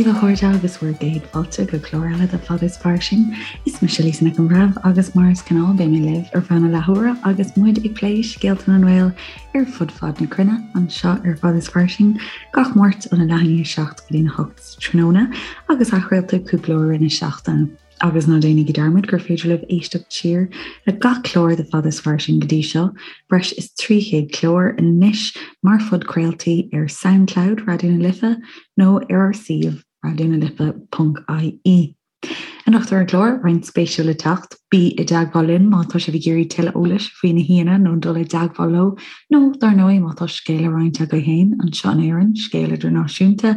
daoibh a chairde agus bhur gcéad fáilte go clár eile de Fada is Fairsing. Is mise Lisa Nic an Bhreithimh agus mar is gnáth beidh mé libh ar feadh na leathuaire agus muid ag plé scéalta na nGael ar fud fad na cruinne anseo ar Fada is Fairsing gach Máirt óna leath i ndiaidh 7 go dtína 8 tráthnóna agus athchraolta cúpla uair i rith na seachtaine. Agus ná déanaigí dearmad gur féidir libh éisteacht siar le gach clár de Fada is Fairsing go dtí seo, breis is 300 clár anois, mar phodchraoltaí ar Soundcloud Raidió na Life nó ar ár suíomh raidionalife.ie. Anocht ar an gclár, roinnt spéisiúil le teacht, bí i dteagmháil linn má tá sibh ag iarraidh tuilleadh eolais faoi na haíonna nó dul i dteagmháil leo, nó dar ndóigh má tá scéal le roinnt agaibh féin anseo in Éirinn, scéal idirnáisiúnta,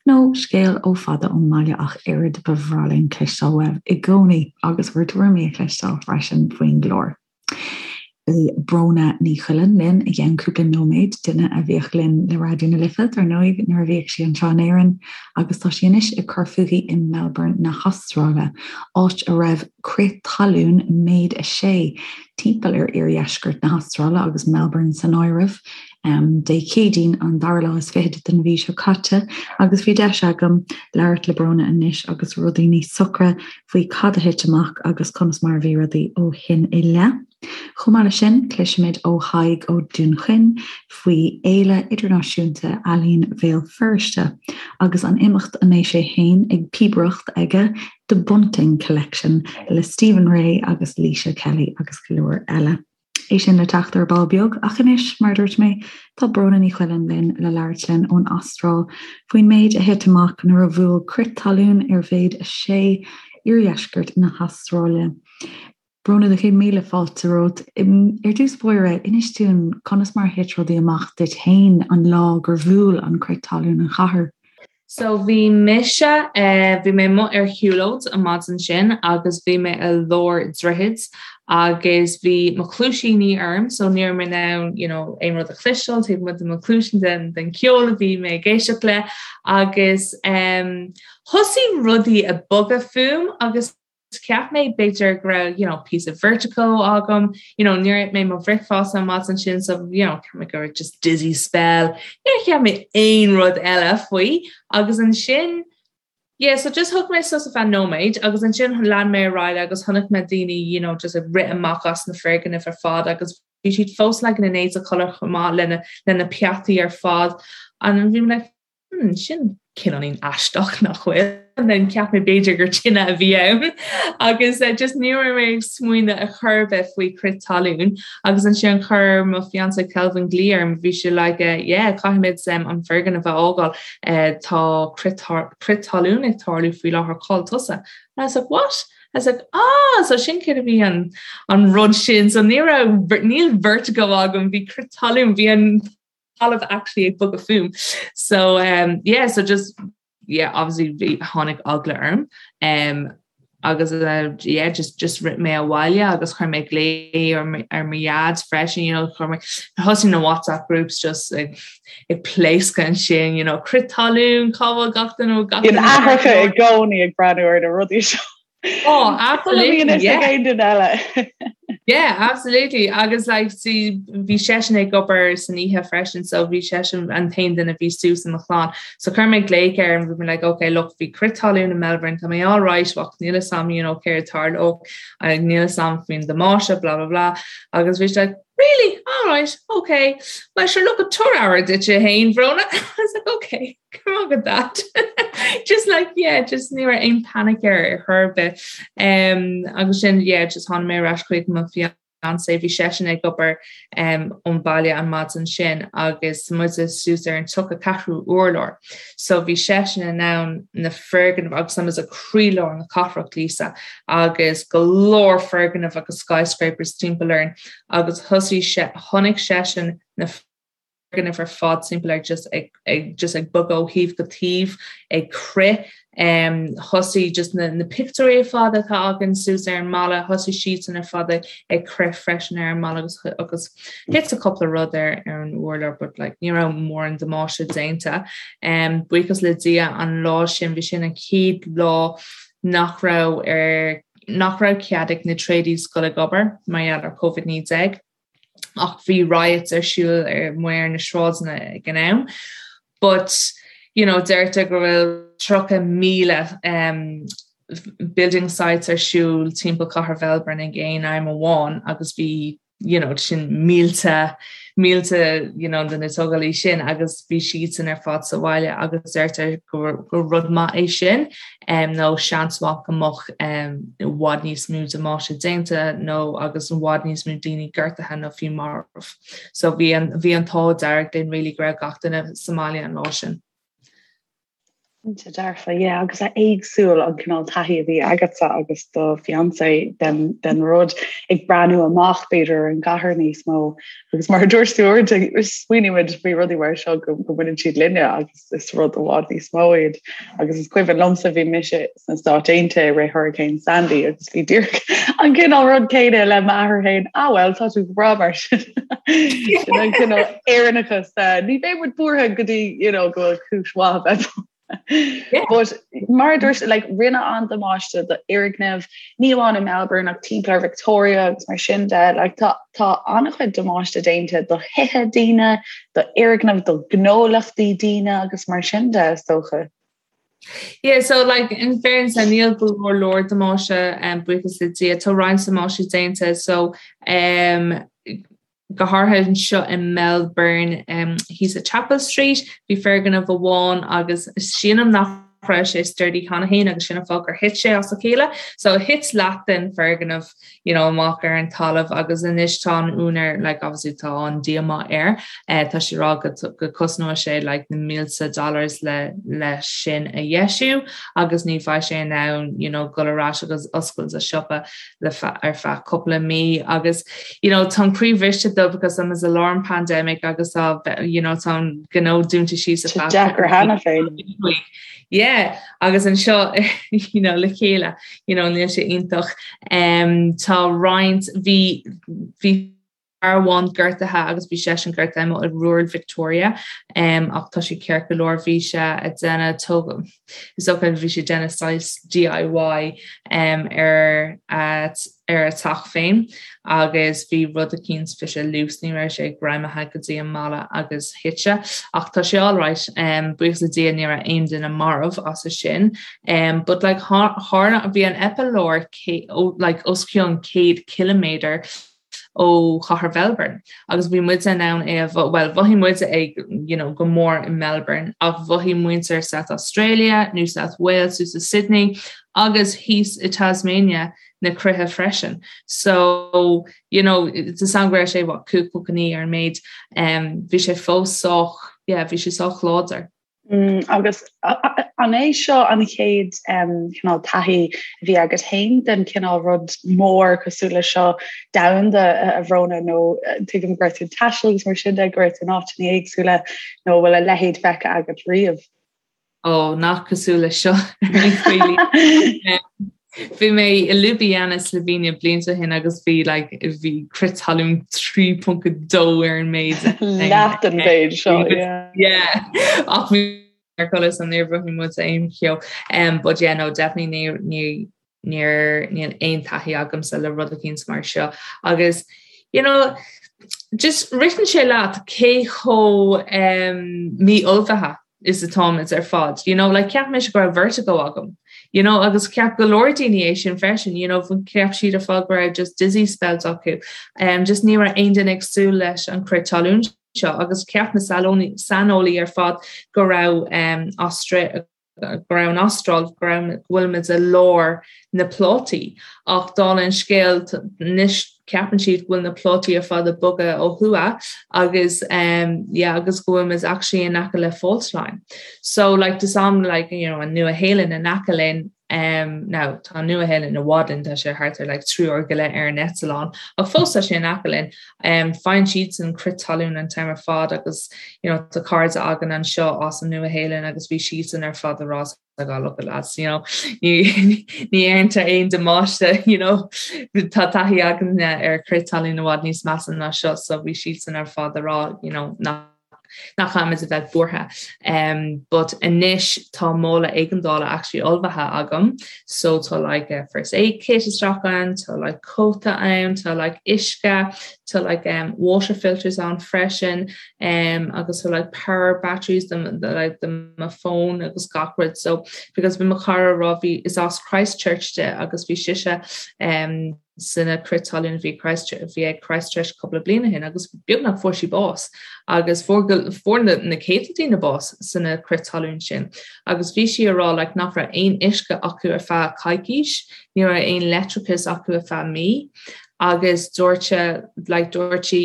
nó scéal ó fada ón mbaile ach oiread, ba bhreá linn cloisteáil uaibh i gcónaí agus bhur dtuairimí a chloisteáil freisin faoin gclár. Beidh Bróna Ní Choileáin linn i gceann cúpla nóiméad, duine a bhíodh linn le Raidió na Life, dar ndóigh, nuair a bhíodh sí anseo in Éirinn agus tá sí anois ag cur fúithi i Melbourne na hAstráile, áit a raibh crith talún méid 6 timpeall ar iardheisceart na hAstráile agus Melbourne san áireamh. Dé Céadaoin an dara lá is fichead den mhí seo caite agus bhí deis agam labhairt le Bróna anois agus rudaí níos socra faoi cad a thit amach agus conas mar a bhí rudaí ó shin i leith. Chomh maith leis sin, cloisfimid ó Thadhg Ó Dúnchaoin faoi Fhéile Idirnáisiúnta Ealaíon Bhéal Feirste agus an imeacht a mbeidh sé féin ag píobaireacht aige, The Bunting Collection le Stephen Rea agus Laoise Kelly agus go leor eile. É sin le teacht ar ball beag, ach anois, mar a dúirt mé, tá Bróna Ní Choileáin linn le labhairt linn ón Astráil faoin méid a thit amach nuair a bhuail crith talún ar mhéid 6 iardheisceart na hAstráile. Bróna, do chéad míle fáilte romhat. Ar dtús báire, inis dúinn conas mar a thit rudaí amach duit féin an lá gur bhuail an crith talún an chathair. So bhí mise, bhí mé amuigh ar shiúlóid an maidin sin agus bhí mé i lár droichid agus bhí mo chluaisíní orm so ní raibh mé in ann you know aon rud a chloisteáil taobh amuigh de mo chluaisín den den ceol a bhí mé ag éisteacht le agus em thosaigh rudaí ag bogadh fúm agus Cheap mé b'fhéidir go raibh you know píosa vertigo agam, you know níor ith mé mo bhricfeasta an maidin sin so you know cheap mé go raibh just dizzy spell, níor cheap mé aon rud eile faoi agus ansin yeah so just thug mé sos ar feadh nóiméid agus ansin lean mé ar aghaidh agus chonaic mé daoine you know just ag rith amach as na foirgnimh ar fad agus bhí siad fós like ina n-éide codladh chomh maith lena lena peataí ar fad and bhí mé like Hmm, sin cineáilín aisteach nach bhfuil. And then cheap mé b'fhéidir gur tine a bhí ann agus uh, just ní raibh mé ag smaoineamh ar chor ar bith faoi crith talún agus ansin chuir mo fiancé Kelvin glaoch orm bhí sé like uh, yeah caithfimid um, an foirgneamh a fhágáil uh, tá crith crith talún ag tarlú faoi láthair cá bhfuil tusa. And I was like what? I was like ah so sin céard a bhí an an rud sin so ní raibh níl vertigo agam bhí crith talún bhí an talamh actually ag bogadh fúm. So um, yeah, so just yeah, obviously bhí tháinig eagla orm. Um, agus uh, yeah, just just rith mé abhaile agus chuir mé glao ar ar mo dhaid freisin, you know, chuir mé thosaigh na WhatsApp groups just ag ag pléascadh ansin, you know, crith talún, cá bhfuil gach duine gach duine. Aithreacha i gcónaí ag breathnú ar na rudaí seo. Oh, absolutely. Yeah. Aon duine eile. Yeah, absolutely. Agus like, see, bhí seisean ag obair san oíche freisin, so bhí seisean an t-aon duine a bhí suas i mo chlann. So chuir mé glaoch air and bhí mé like, okay, look, bhí crith talún in Melbourne, tá mé all right, ach níl a fhios agam, you know, céard a tharlódh, níl a fhios agam faoin damáiste, blah, blah, blah. Agus bhí sé like, really? All right, okay. Well, sure, look, tabhair aire duit féin, Bhróna. I was like, okay. Come on with that. Just like yeah, just ní raibh aon panic air ar chor ar bith. Um, agus sin yeah, just tháinig mé ar ais chuig mo fiancé bhí seisean ag obair um, ón baile an maidin sin agus muid suas ar an 34ú urlár. So bhí seisean in ann na foirgnimh agus tá muid i croílár na cathrach Lisa agus go leor foirgnimh agus skyscrapers timpeall orainn agus thosaigh sé chonaic seisean na foirgnimh ar fad timpeall air just ag ag just ag bogadh ó thaobh go taobh ag crith. Um, thosaigh just na, na pictiúirí ar fad atá againn suas ar an mballa, thosaigh siadsan ar fad ag, ag crith freisin ar an mballa agus, agus thit cúpla rud ar, ar an urlár but like, ní raibh mórán damáiste déanta. Um, buíochas le Dia an lá sin bhí sin an chéad lá nach raibh ar nach raibh cead ag na tradies dul ag obair mar gheall ar COVID-19. ach bhí riots ar siúl ar amuigh ar na sráideanna ag an am. But you know, deirtear go bhfuil 30,000 um, building sites ar siúl timpeall cathair Mhelbourne ag aon am amháin agus bhí you know, sin mílte mílte you know, de na tógálaí sin agus bhí siadsan ar fad sa bhaile agus deirtear gur, gur rud maith é sin um, nó seans maith go mbeadh um, i bhfad níos mó damáiste déanta nó agus i bhfad níos mó daoine gortaithe nó fiú marbh. So bhí an, bhí an t-ádh dearg linn really go raibh gach duine sa mbaile an lá sin. Cinnte dearfa, yeah, agus éagsúil an cineál taithí a bhí agatsa agus do fiancé den, den rud ag breathnú amach b'fhéidir ar an gcathair níos mó agus mar a dúirt tú uaireanta smaoinímid faoi rudaí mar seo go, go mbaineann siad linne agus is rud i bhfad níos mó iad. Agus is cuimhin liomsa bhí mise sna Stáit Aontaithe i rith Hurricane Sandy agus bhí díreach an cineál rud céanna le m'athair féin, ah well tá tú go breá mar sin. Sin an cineál Éireannachas ní bheidh muid buartha go dtí you know, go bhfuil cúis mhaith a bheith But mar a dúirt like, rinne an-damáiste do fhoirgnimh ní amháin i Melbourne ach timpeall ar Victoria agus mar sin de like, tá, tá an-chuid damáiste déanta do thithe daoine, do fhoirgnimh, do ghnólachtaí daoine agus mar sin de is dócha. Yeah, so like in fairness níl go leor leor damáiste um, buíochas le Dia tá roinnt damáiste déanta so um, go háirithe anseo i Melbourne um, thíos i Chapel Street bhí foirgneamh amháin agus sílim nach raibh sé sturdy cheana féin agus sin an fáth gur thit sé as a chéile so thit leath den foirgneamh you know, amach ar an talamh agus anois tá an úinéir like obviously tá an díomá air eh, tá sé ag rá go, go cosnóidh sé like na mílte dollars le le sin a dheisiú agus ní bheidh sé in ann you know, dul ar ais agus oscailt a siopa le ar feadh cúpla mí agus you know, tá an croí bhriste dó because tá muid i lár an pandemic agus tá you know, tá an gnó dúnta síos ar feadh deacair cheana féin. Yeah, agus anseo you know, le chéile you know, níl sé iontach. Um, tá roinnt bhí bhí fear amháin gortaithe agus bhí seisean gortaithe amuigh i rural Victoria um, ach tá sé ceart go leor bhí sé ag déanamh tóg is dócha bhí sé ag déanamh saghas DIY um, ar a, ar a teach féin agus bhí rud eicínt bhí sé loose ní raibh sé greamaithe go dtí an mballa agus thit sé ach tá sé alright um, buíochas le Dia ní raibh aon duine marbh as sin um, but like tharla bhí an eipealár like os cionn 100 km ó chathair Mhelbourne agus bhí muid in ann é a well mhothaigh muid é you know, go mór i Melbourne ach mhothaigh muintir South Australia, New South Wales, suas i Sydney agus thíos i Tasmania na crithe freisin. So you know, it's an go raibh sé what 5.9 ar an méid um, bhí sé fós sách yeah, bhí sé sách láidir. Mm, agus an é seo an chéad cineál taithí a bhí agat féin den cineál rud mór cosúil le seo domhanda a Bhróna nó tuigim go raibh tú ag taisteal agus mar sin de go raibh tú in áiteanna éagsúla nó bhfuil a leithéid feicthe agat riamh? Ó nach cosúil le seo Bhí mé i Ljubljana Slovenia blianta ó shin agus bhí like, bhí crith talún 3.2 ar an méid. Leath den mhéid seo. Yeah. Ach bhí ar codladh so níor mhothaigh muid aon cheo. Um, but yeah, no, definitely ní, ní, níor, níl aon taithí agamsa le rud eicínt mar seo. Agus, you know, just ritheann sé leat cé chomh um, mí-ullmhaithe is atáimid ar fad. You know, like cheap mise go raibh vertigo agam. You know, agus cheap go leor daoine é sin freisin, you know, cheap siad ar fad go raibh just dizzy spells acu. Um, just ní raibh aon duine ag súil leis an crith talún seo agus cheap na saineolaí ar fad go raibh um, Austra go raibh an Astráil go raibh go bhfuilimid i lár na plátaí ach dála an scéil anois ceapann siad go bhfuil na plátaí ar fad ag bogadh ó thuaidh agus um, yeah, agus go bhfuilimid actually in aice le fault line. So like tá sam like you know, an Nua-Shéalainn in aice linn um, now tá Nua-Shéalainn i bhfad linn tá sé thart ar like 3 uair go leith ar an eitleán ach fós tá sé in aice linn um, faigheann siadsan crith talún an t-am ar fad agus you know, tá cairde againn anseo as an Nua-Shéalainn agus bhí siadsan ar fad ag rá like, oh, look at lads, you know, ní dhéantar aon damáiste, you know, tá taithí againne ar crith talún i bhfad níos measa ná seo, so bhí siadsan ar fad ag rá, you know, nach. Nach caithfimid a bheith buartha. Um, but anois tá mála éigeandála actually ullmhaithe agam, so tá like a first aid kit isteach ann, tá like cóta ann, tá like uisce, tá like um, water filters ann freisin, um, agus tá like power batteries do, do, like, do mo phone agus gach rud. So because bhí mo chara ag rá bhí is as Christchurch di agus bhí sise um, sna crith talún a bhí bhí ag Christchurch cúpla bliain ó shin agus beagnach fuair sí bás agus fuair fuair na na céadta daoine bás sna crith talún sin agus bhí sí ag rá like nach raibh aon uisce acu ar feadh coicís, ní raibh aon leictreachas acu ar feadh mí agus dúirt sé like dúirt sí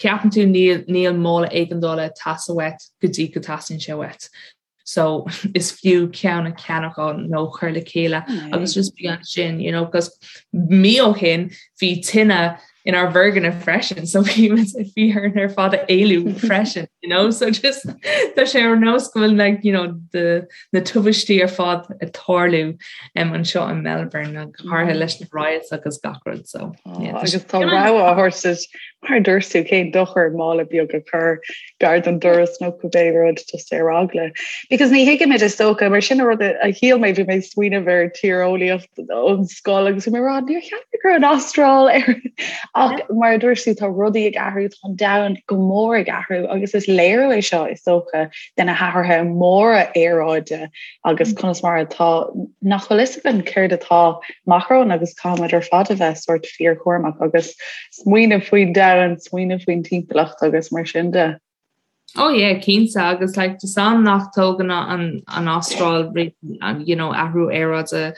ceapann tú níl níl mála éigeandála ag teastáil uait go dtí go dteastaíonn sé uait. So is fiú ceann a cheannach nó chur le chéile agus just bí ansin, you know, because mí ó shin bhí tine inár bhfoirgneamh freisin, so bhí bhí orainn ar fad a éalú freisin, you know, so just tá sé ar nós go bhfuil like, you know, the, na tubaistí ar fad ag tarlú um, anseo in Melbourne go háirithe leis na riots agus gach rud so. Oh, yeah, agus tá rogha á thabhairt mar a dúirt tú cén dochar mála beag a chur gar don doras nó cibé rud just ar eagla. Because ní thuigimid is dócha mar sin an rud a shíl mé bhí mé ag smaoineamh ar tíreolaíocht ón scoil agus bhí mé ag rá níor cheap mé go raibh an Astráil ar ach mar a dúirt tú tá rudaí ag athrú tá an domhan go mór ag athrú agus is léiriú é seo is dócha de na hathruithe móra aeráide agus conas mar atá nach bhfuil fhios againn céard atá amach romhainn agus caithfimid ar fad a bheith sórt fíorchúramach agus smaoineamh faoin domhan, smaoineamh faoin timpeallacht agus mar sin de. Oh yeah, cinnte agus like tá sam nach dtógann an an Astráil you know athrú aeráide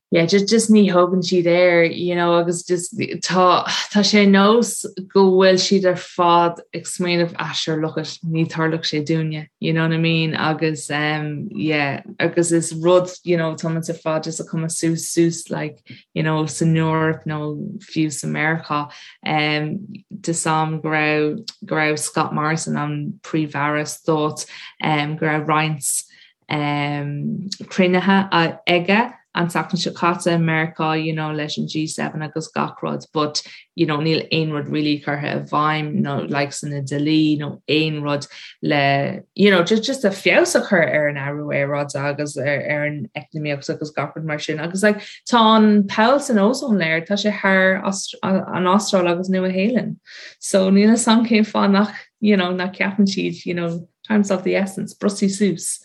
yeah, just just ní thógann siad air you know agus just tá tá sé nós go bhfuil siad ar fad ag smaoineamh ah sure look it ní tarlóidh sé dúinne you know what I mean agus um yeah agus is rud you know tá muid ar fad just ag cuma suas suas like you know, san Eoraip nó fiú sa Meiriceá. Um, tá sam go raibh go raibh Scott Morrison an príomh-aire stáit um, go raibh roinnt um, cruinnithe aige an tseachtain seo caite i Meiriceá you know, leis an G7 agus gach rud, but you know, níl aon rud really curtha i bhfeidhm nó like sna dlí nó aon rud le you know, just, just a feabhas a chur ar an athrú aeráide agus ar, ar an eacnamaíocht agus gach rud mar sin. Agus like, tá an poll san ozone layer, tá sé thar an Astráil agus Nua Shéalainn. So níl a fhios agam cén fáth nach, you know, nach ceapann siad, you know, time's of the essence, brostaigh suas,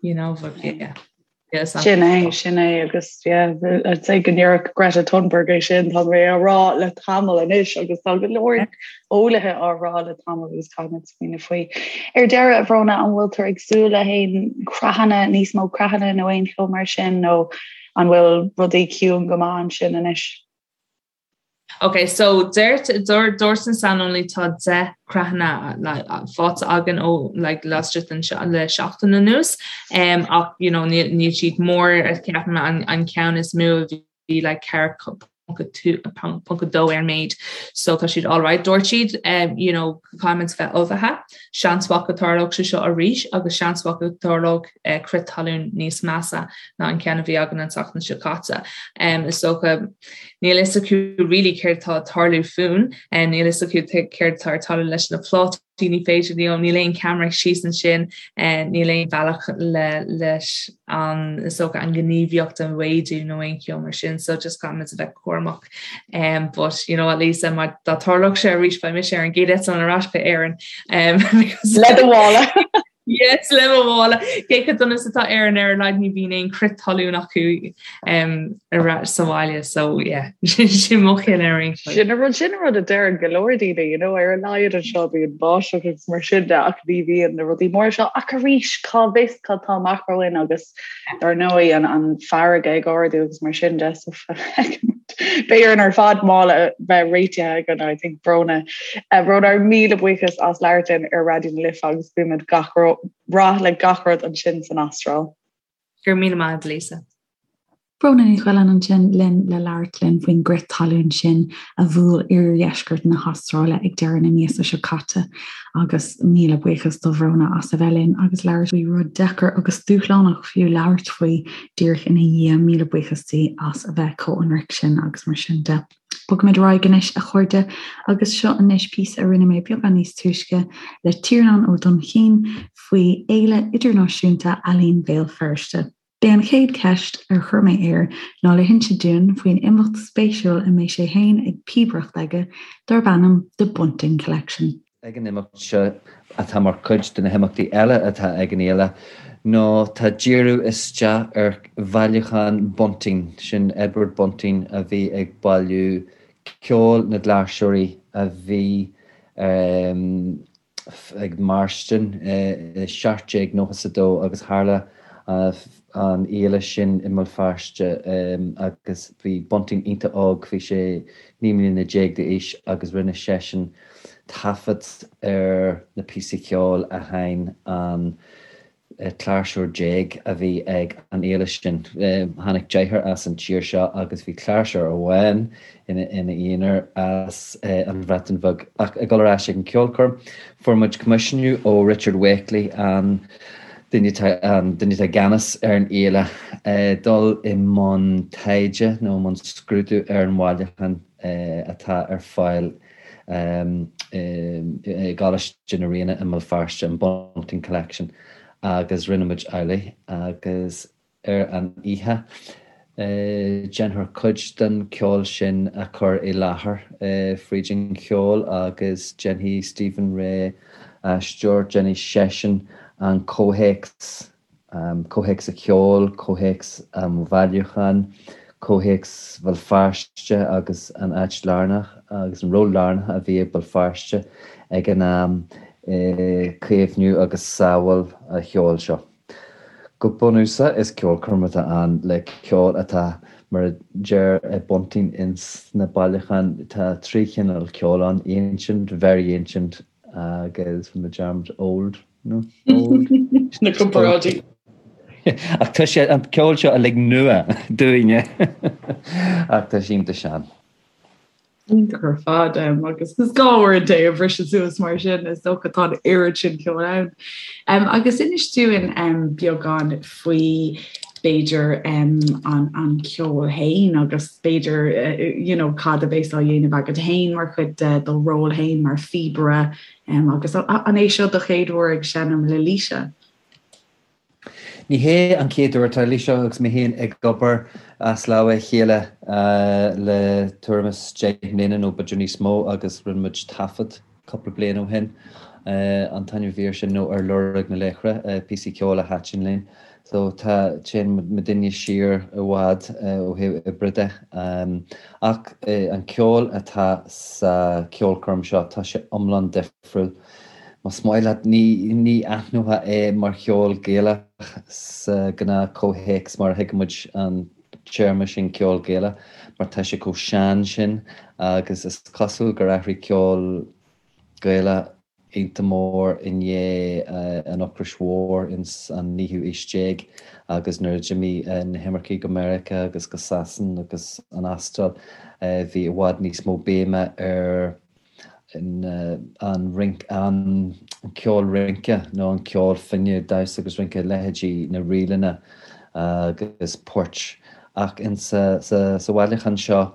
you know, but yeah. Sin é, sin é agus I'd say go ndéarfadh Greta Thunberg é sin tá mé á rá le tamall anois agus tá go leor eolaithe á rá le tamall agus caithfimid smaoineamh faoi. Ar deireadh a Bhróna an bhfuil tú ag súil le haon creathanna níos mó creathanna nó aon cheo mar sin nó an bhfuil rudaí ciúin go maith ansin anois? Ok, so dúirt dúirt an saineolaí tá 10 creathanna faighte againn ó like laistigh den le seachtain anuas um, ach you know, níl níl siad mór ceapaim an, an ceann is mó a bhí like 4.2 ar an méid so tá siad alright. Dúirt siad um, you know, caithfimid bheith ullmhaithe, seans mhaith go dtarlódh sé seo arís agus seans mhaith go dtarlódh eh, crith talún níos measa ná an ceann a bhí againn an tseachtain seo caite. Um, is dócha níl fhios acu really céard tá ag tarlú fúinn, um, níl fhios acu céard tá ag tarlú leis na plátaí, ní féidir leo, níl aon ceamara síos ansin, eh, níl aon bhealach le leis an is dócha an ghníomhaíocht a mhéadú nó aon cheo mar sin, so just caithfimid a bheith cúramach. Um, but you know at least um, dá dtarlódh sé arís beidh mise ar an gcéad eitleán ar ais go Éirinn. Um, le do mhála. Yes, le mo mhála. Cé chomh dona is atá Éirinn ar a laghad ní bhíonn aon crith talún acu um, ar ais sa bhaile, so yeah, sin mo chinneadh ar aon chaoi. Sin an rud sin an rud a deireann go leor daoine, you know, ar a laghad anseo bíonn báisteach agus mar sin de ach ní bhíonn na rudaí móra seo ach arís cá bhfios cad tá amach romhainn agus Dar ndóigh, an farraige ag ardú agus mar sin de, so beidh orainn ar fad mála a bheith réitithe againn, I think, Bróna. Bróna, ár míle buíochas as labhairt linn ar Raidió na Life agus guímid gach rath le gach rud ansin san Astráil. Go raibh míle maith agat, Lisa. Bróna Ní Choileáin ansin linn le labhairt linn faoin gcrith talún sin a bhuail iardheisceart na hAstráile ag deireadh na míosa seo caite. Agus míle buíochas do Bhróna as a bheith linn agus labhairt faoi rud deacair agus dúshlánach fiú labhairt faoi díreach ina dhiaidh. Míle buíochas di as a bheith chomh hionraic sin agus mar sin de. Bogfaimid ar aghaidh anois, a chairde, agus seo anois píosa a rinne mé beagán níos túisce le Tiarnán Ó Duinnchinn faoi Fhéile Idirnáisiúnta Ealaíon Bhéal Feirste. B'é an chéad cheist ar chuir mé air ná le hinse dúinn faoin imeacht spéisiúil a mbeidh sé féin ag píobaireacht aige darb ainm The Bunting Collection. Ag an imeacht seo, atá mar chuid de na himeachtaí eile atá ag an fhéile, ná tá díriú isteach ar bhailiúchán Bunting, sin Edward Bunting a bhí ag bailiú ceol na gcláirseoirí a bhí ag mairstin i 1792 agus tharla an fhéile sin i mBéal Feirste agus bhí Bunting iontach óg, bhí sé 19 mbliana d'aois agus rinne seisean taifead ar na píosaí ceoil a sheinn an cláirseoir déag a bhí ag an fhéile sin. Tháinig deichniúr as an tír seo agus bhí cláirseoir amháin ina aonar as an Bhreatain Bheag. Ach ag dul ar ais ag an ceolchoirm, fuair muid coimisiúnú ó Richard Wakely, an duine atá an duine atá i gceannas ar an fhéile, dul i mbun taighde nó i mbun scrúdú ar an bhailiúchán atá ar fáil i gColáiste na Ríona i mBéal Feirste, an Bunting Collection, agus rinne muid amhlaidh agus ar an oíche déanfar cuid den cheol sin a chur i láthair fríd an cheol agus déanfaidh Stephen Rea aisteoir, déanfaidh seisean an comhthéacs comhthéacs an cheoil, comhthéacs an bhailiúcháin, comhthéacs Bhéal Feirste agus an áit lárnach agus an ról lárnach a bhí ag Béal Feirste ag an am i caomhnú agus sábháil an cheoil seo. Go bunúsach is ceolchoirm atá ann le ceol atá, mar a deir Bunting ins na bailiúcháin, tá trí chineál ceoil ann, ancient, very ancient agus rinne mé dearmad old. No, old. Na comparáidí. Ach tá sé an ceol seo uilig nua dúinne. Ach tá sé iontach sean. Iontach ar fad agus is gá uaireanta é a bhriseadh suas mar sin is dócha tá an oiread sin ceoil ann. Um, agus inis dúinn um, beagán faoi b'fhéidir um, an, an ceol féin agus b'fhéidir uh, you know, cad a bheas á dhéanamh agat féin mar chuid de do ról féin mar phíobaire Agus an é seo do chéad uair ag seinm le Laoise? Ní hé an chéad uair. Tá Laoise agus mé féin ag obair as lámha a chéile le tuairim is 10 mbliana nó b'fhéidir níos mó agus rinne muid taifead cúpla bliain ó shin. An t-ainm a bhí air sin nó Ar Lorg na Laochra, píosaí ceoil a thaitin linn. So tá, téann muidinne siar i bhfad ó thaobh oibre de. Ach an ceol atá sa cheolchoirm seo, tá sé iomlán difriúil. Más maith leat, ní, ní aithneofá é mar cheol Gaelach sa ghnáth comhthéacs mar a thuigeann muid an téarma sin ceol Gaelach, mar tá sé chomh sean sin agus is cosúil gur athraigh ceol Gaelach iontach mór i ndiaidh an Ocrais Mhóir ins an naoú aois déag agus nuair a d'imigh na himircigh go Meiriceá agus go Sasain agus an Astráil bhí i bhfad níos mó béime ar an rince, an ceol rince nó an ceol finne, damhsa agus rince, leithéidí na ríleanna agus poirt. Ach ins sa bhailiúchán seo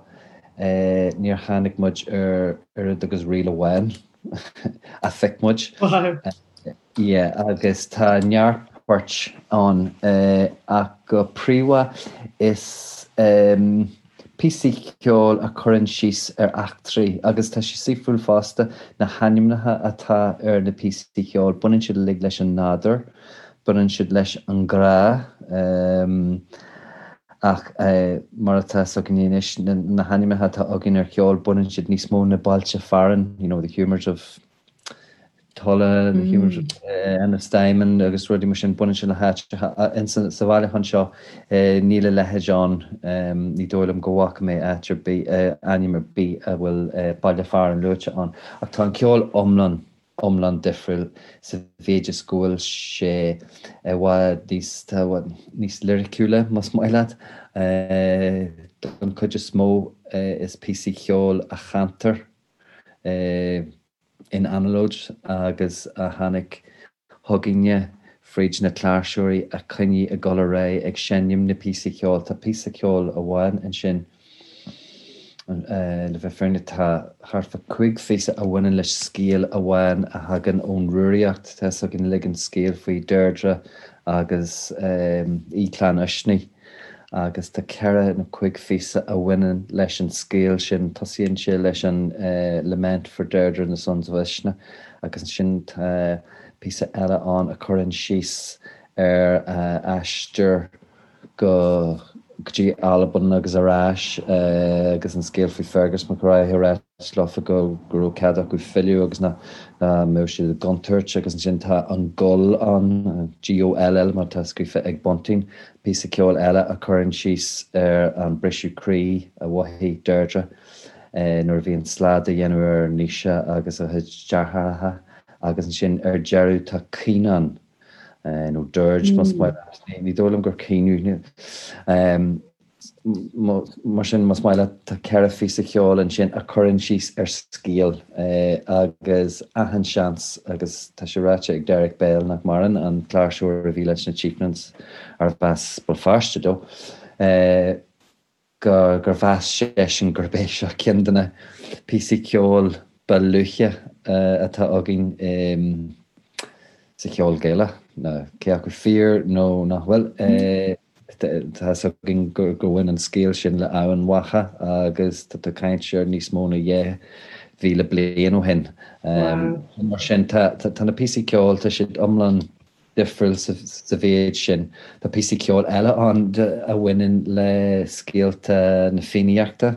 níor tháinig muid ar oiread agus ríl amháin. a phioc muid. Yeah, agus tá neart poirt ann ach go príomha is píosaí ceoil a chuireann síos ar eachtraí agus tá sé saoithiúil fosta na hainmneacha atá ar na píosaí ceoil, baineann siad uilig leis an nádúr, baineann siad leis an ngrá. Ach mar atá 's againne anois, na hainmneacha atá againn ar cheol, baineann siad níos mó na bailte fearainn, you know, the humours of Tulla, the humours of Ennistymon agus rudaí mar sin, baineann siad le háiteacha. Sa bhailiúchán seo, níl a leithéid ann, ní dóigh liom go bhfaca mé áit ar bith, ainm ar bith a bhfuil baile fearainn luaite ann. Ach tá an ceol iomlán iomlán difriúil sa mhéid is go bhfuil sé i bhfad níos, tá i bhfad níos liriciúla, más maith leat. Don chuid is mó is píosaí ceoil a chantar in anallód agus a tháinig chugainne fríd na cláirseoirí a choinnigh ag dul ar aghaidh ag seinm na píosaí ceoil. Tá píosa ceoil amháin ansin. Le bheith fírinneach, tá thart fá 5 phíosa a bhaineann le scéal amháin a thagann ón Rúraíocht. Tá fhios againn uilig an scéal faoi Deirdre agus Aoi Chlann Uisnigh agus tá ceithre nó cuig phíosa a bhaineann leis an scéal sin. Tosaíonn sé leis an Lament for Deirdre and the Sons of Uisnigh agus ansin tá píosa eile ann a chuireann síos ar a aistear go dtí Albain agus ar ais agus an scéal faoi Fergus Mac Róich ag ráit leofa go raibh cead acu filleadh agus nach mbeadh siad i gcontúirt agus ansin tá an Goll ann, GOLL mar atá scríofa ag Bunting, píosa ceoil eile a chuireann síos ar an briseadh croí a mhothaigh Deirdre nuair a bhí an slad á dhéanamh ar Naoise agus a chuid deartháireacha agus ansin ar deireadh tá Caoineadh nó dirge más maith leat. Ní dóigh liom gur caoineadh. Mar sin, más maith leat, tá ceithre phíosa ceoil ansin a chuireann síos ar scéal agus achan seans, agus tá sé ráite ag Derek Bell, nach maireann, an cláirseoir a bhí leis na Chieftains, arbh as Béal Feirste dó, gur mheas seisean gurb é seo ceann de na píosaí ceoil ba luaithe atá againn sa cheol Gaelach. Cé acu fíor nó nach bhfuil, tá fhios againn gur bhain an scéal sin le Eamhain Mhacha agus tá tú ag caint ar níos mó ná 2,000 bliain ó shin. Mar sin, tá na píosaí ceoil, tá siad iomlán difriúil sa mhéid sin. Tá píosaí ceoil eile ann a bhaineann le scéalta na Fiannaíochta.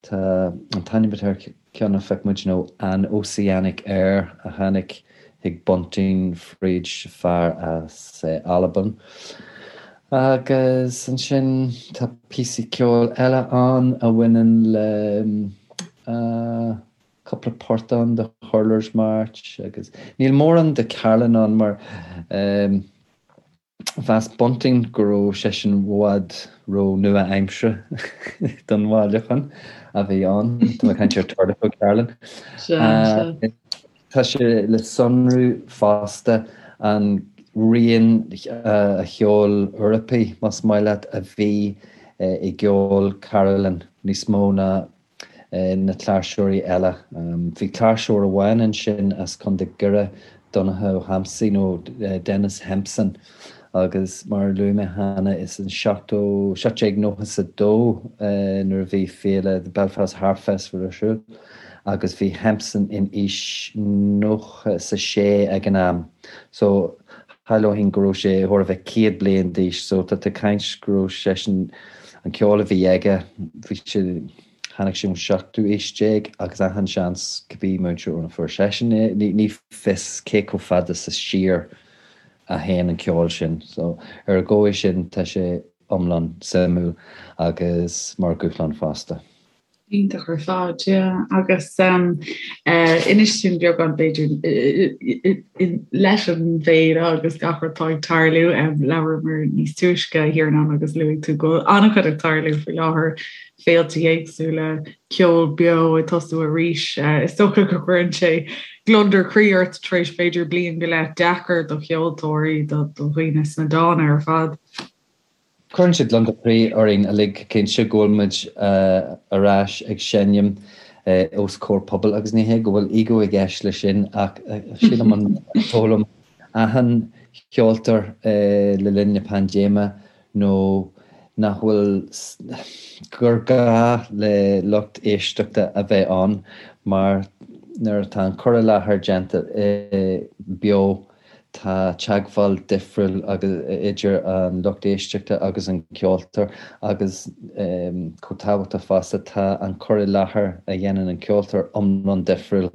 Tá an t-ainm atá ar ceann a phioc muid nó An Ossianic Air a tháinig chuig Bunting fríd fear as Albain. Agus ansin tá píosaí ceoil eile ann a bhaineann le cúpla port ann de Hurler's March agus níl mórán de Carlin ann mar mheas Bunting go raibh seisean i bhfad ró nua-aimseartha don bhailiúchán a bhí ann. Tá mé ag caint ar Tordifo Carlin. Tá sé le sonrú fosta an rian an cheoil Eorpaigh, más maith leat, a bhí i gceol Carlin níos mó ná na cláirseoirí eile. Bhí cláirseoir amháin ansin as Contae Dhoire, Donncha Ó hEamsaigh nó Denis Hempson, agus mar a luaigh mé cheana, is in 1792 nuair a bhí féile The Belfast Harp Festival ar siúl agus bhí Hempson in aois 96 ag an am. So shamhlóinn go raibh sé chóir a bheith 100 bliain d'aois so tá tú ag caint go raibh seisean An ceol a bhí aige, bhí sé, tháinig sé ón seachtú aois déag agus achan seans cibé múinteoir óna fuair seisean é, ní fios cé chomh fada sa siar a théann an ceol sin. So ar an dhóigh sin tá sé iomlán suimiúil agus mar dhúshlán fosta. Iontach ar fad, yeah. Agus inis dúinn beagán b'fhéidir leis an bhféile agus gach rud atá ag tarlú, labhramar níos túisce a Thiarnáin agus luaigh tú go bhfuil an-chuid ag tarlú faoi láthair, féilte éagsúla, ceol beo ag tosú arís. Is dócha go gcuireann sé gliondar croí ort tar éis b'fhéidir bliain go leith deacair do cheoltóirí, do dhaoine sna dána ar fad. Cuireann sé gliondar croí orainn uilig cinnte go bhfuil muid ar ais ag seinm os comhair pobail agus ní hé go bhfuil ego i gceist leis sin ach sílim an d'fhoghlaim achan cheoltóir le linn na paindéime nó nach bhfuil gur gá le lucht éisteachta a bheith ann mar nuair atá an cur i láthair déanta beo Tá teagmháil difriúil idir an lucht éisteachta agus an ceoltóir agus chomh tábhachtach fosta, tá an cur i láthair a dhéanann an ceoltóir iomlán difriúil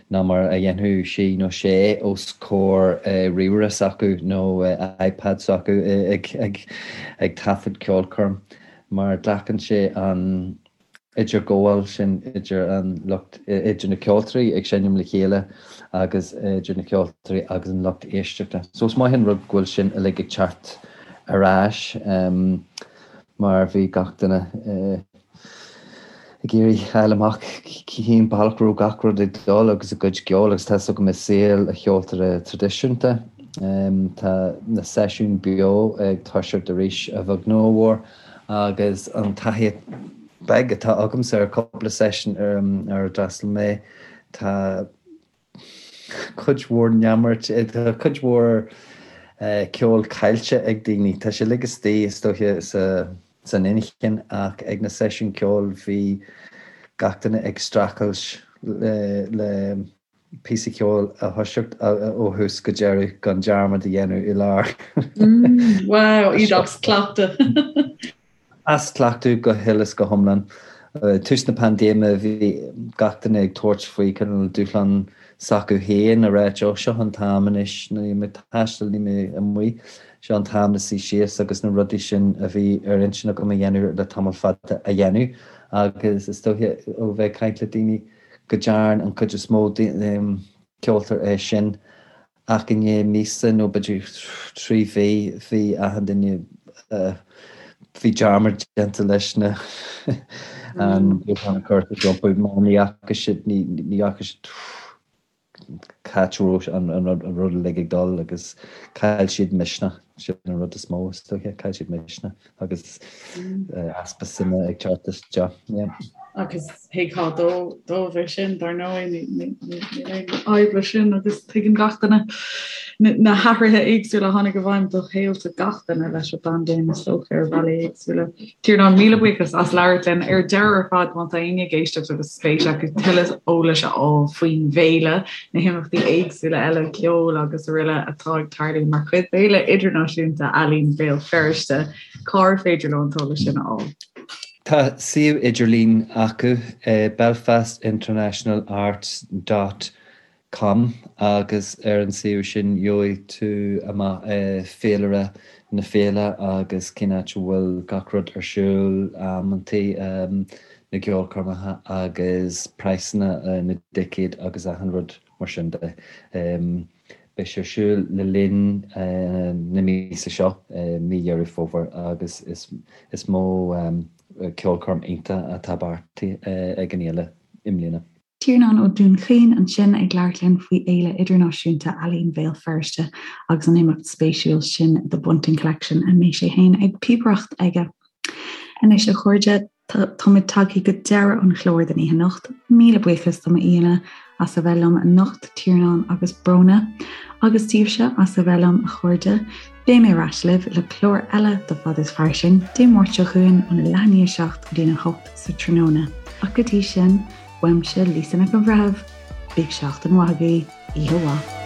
ná mar a dhéanfadh sí nó sé os comhair ríomhaire s'acu nó iPad s'acu ag taifead ceolchoirm mar glacann sé an idirghabháil sin idir an lucht, idir na ceoltóirí ag seinm le chéile agus idir na ceoltóirí agus an lucht éisteachta. So is maith an rud go bhfuil sin uilig ag teacht ar ais mar bhí gach duine ag iarraidh fáil amach cén bealach a raibh gach rud ag dul agus a gcuid ceoil agus tá 'fhios agam i saol an cheoltóra traidisiúnta tá na seisiúin beo ag toiseacht arís a bheag nó a mhór agus an taithí. beag atá agamsa ar cúpla seisiún ar a d'fhreastail mé, tá cuid mhór neamart, tá cuid mhór ceol caillte ag daoine. Tá sé uilig istigh, is dóiche, san inchinn ach ag na seisiúin ceoil bhí gach duine ag streachailt le píosa ceoil a thoiseacht ó thús go deireadh gan dearmad a dhéanamh i lár. Wow, iad as cleachtadh. As cleachtadh go huile is go hiomlán. Tús na paindéime bhí gach duine ag tabhairt faoi cineál dúshlán s'acu féin a ráit ó seo an t-am anois, níl mé ag taisteal, níl mé amuigh, seo an t-am le suí síos agus na rudaí sin a bhí ar intinn agam a dhéanamh le tamall fada a dhéanamh agus is dóiche ó bheith ag caint le daoine go dtearn an chuid is mó ceoltóir é sin ach i ndiaidh míosa nó b'fhéidir 3 mhí bhí achan duine bhí dearmad déanta leis na an dúshlán a chur rompu mar ní fhaca siad ní fhaca siad cá háit a raibh an rud uilig ag dul agus chaill siad misneach, sin an rud is mó is dóiche, chaill siad misneach agus easpa suime ag teacht isteach. Yeah. Agus thuigfeá dóibh é sin, dar ndóigh, níl aon fhadhb leis sin agus tuigeann gach duine na hathruithe éagsúla a tháinig i bhfeidhm do shaolta gach duine leis an bpaindéim is dócha ar bhealaí éagsúla. Tiarnán, míle buíochas as labhairt linn. Ar deireadh ar fad, má tá éinne ag éisteacht agus spéis acu tuilleadh eolais a fháil faoin bhféile, na himeachtaí éagsúla eile, ceol agus araile atá ag tarlú mar chuid d'Fhéile Idirnáisiúnta Ealaíon Bhéal Feirste, cár féidir leo an t-eolas sin a fháil? Tá suíomh idirlín acu, belfastinternationalarts dot com agus ar an suíomh sin gheobhaidh tú amach féilire na féile agus cén áit a bhfuil gach rud ar siúl, amantaí na gceolchoirmeacha agus praghsanna na dticéad agus achan rud mar sin de. Beidh sé ar siúl le linn na míosa seo, mí Dheireadh Fómhair, agus is mó ceolchoirm iontach atá beartaithe ag an fhéile i mbliana. Tiarnán Ó Dúnchaoin ansin ag labhairt linn faoi Fhéile Idirnáisiúnta Ealaíon Bhéal Feirste agus an imeacht spéisiúil sin The Bunting Collection a mbeidh sé féin ag píobaireacht aige. Anois a chairde, táimid tagtha go deireadh an chláir don oíche anocht. Míle buíochas do m'aíonna as a bheith liom anocht, Tiarnán agus Bróna, agus daoibhse as a bheith liom a chairde. Beidh mé ar ais libh le clár eile de Fad is Fairsing, Dé Máirt seo chugainn óna leath i ndiaidh a 7 go dtí'n 8 sa tráthnóna. Ach go dtí sin, uaimse Lisa Nic an Bhreithimh, bíodh seachtain mhaith agaibh, oíche mhaith.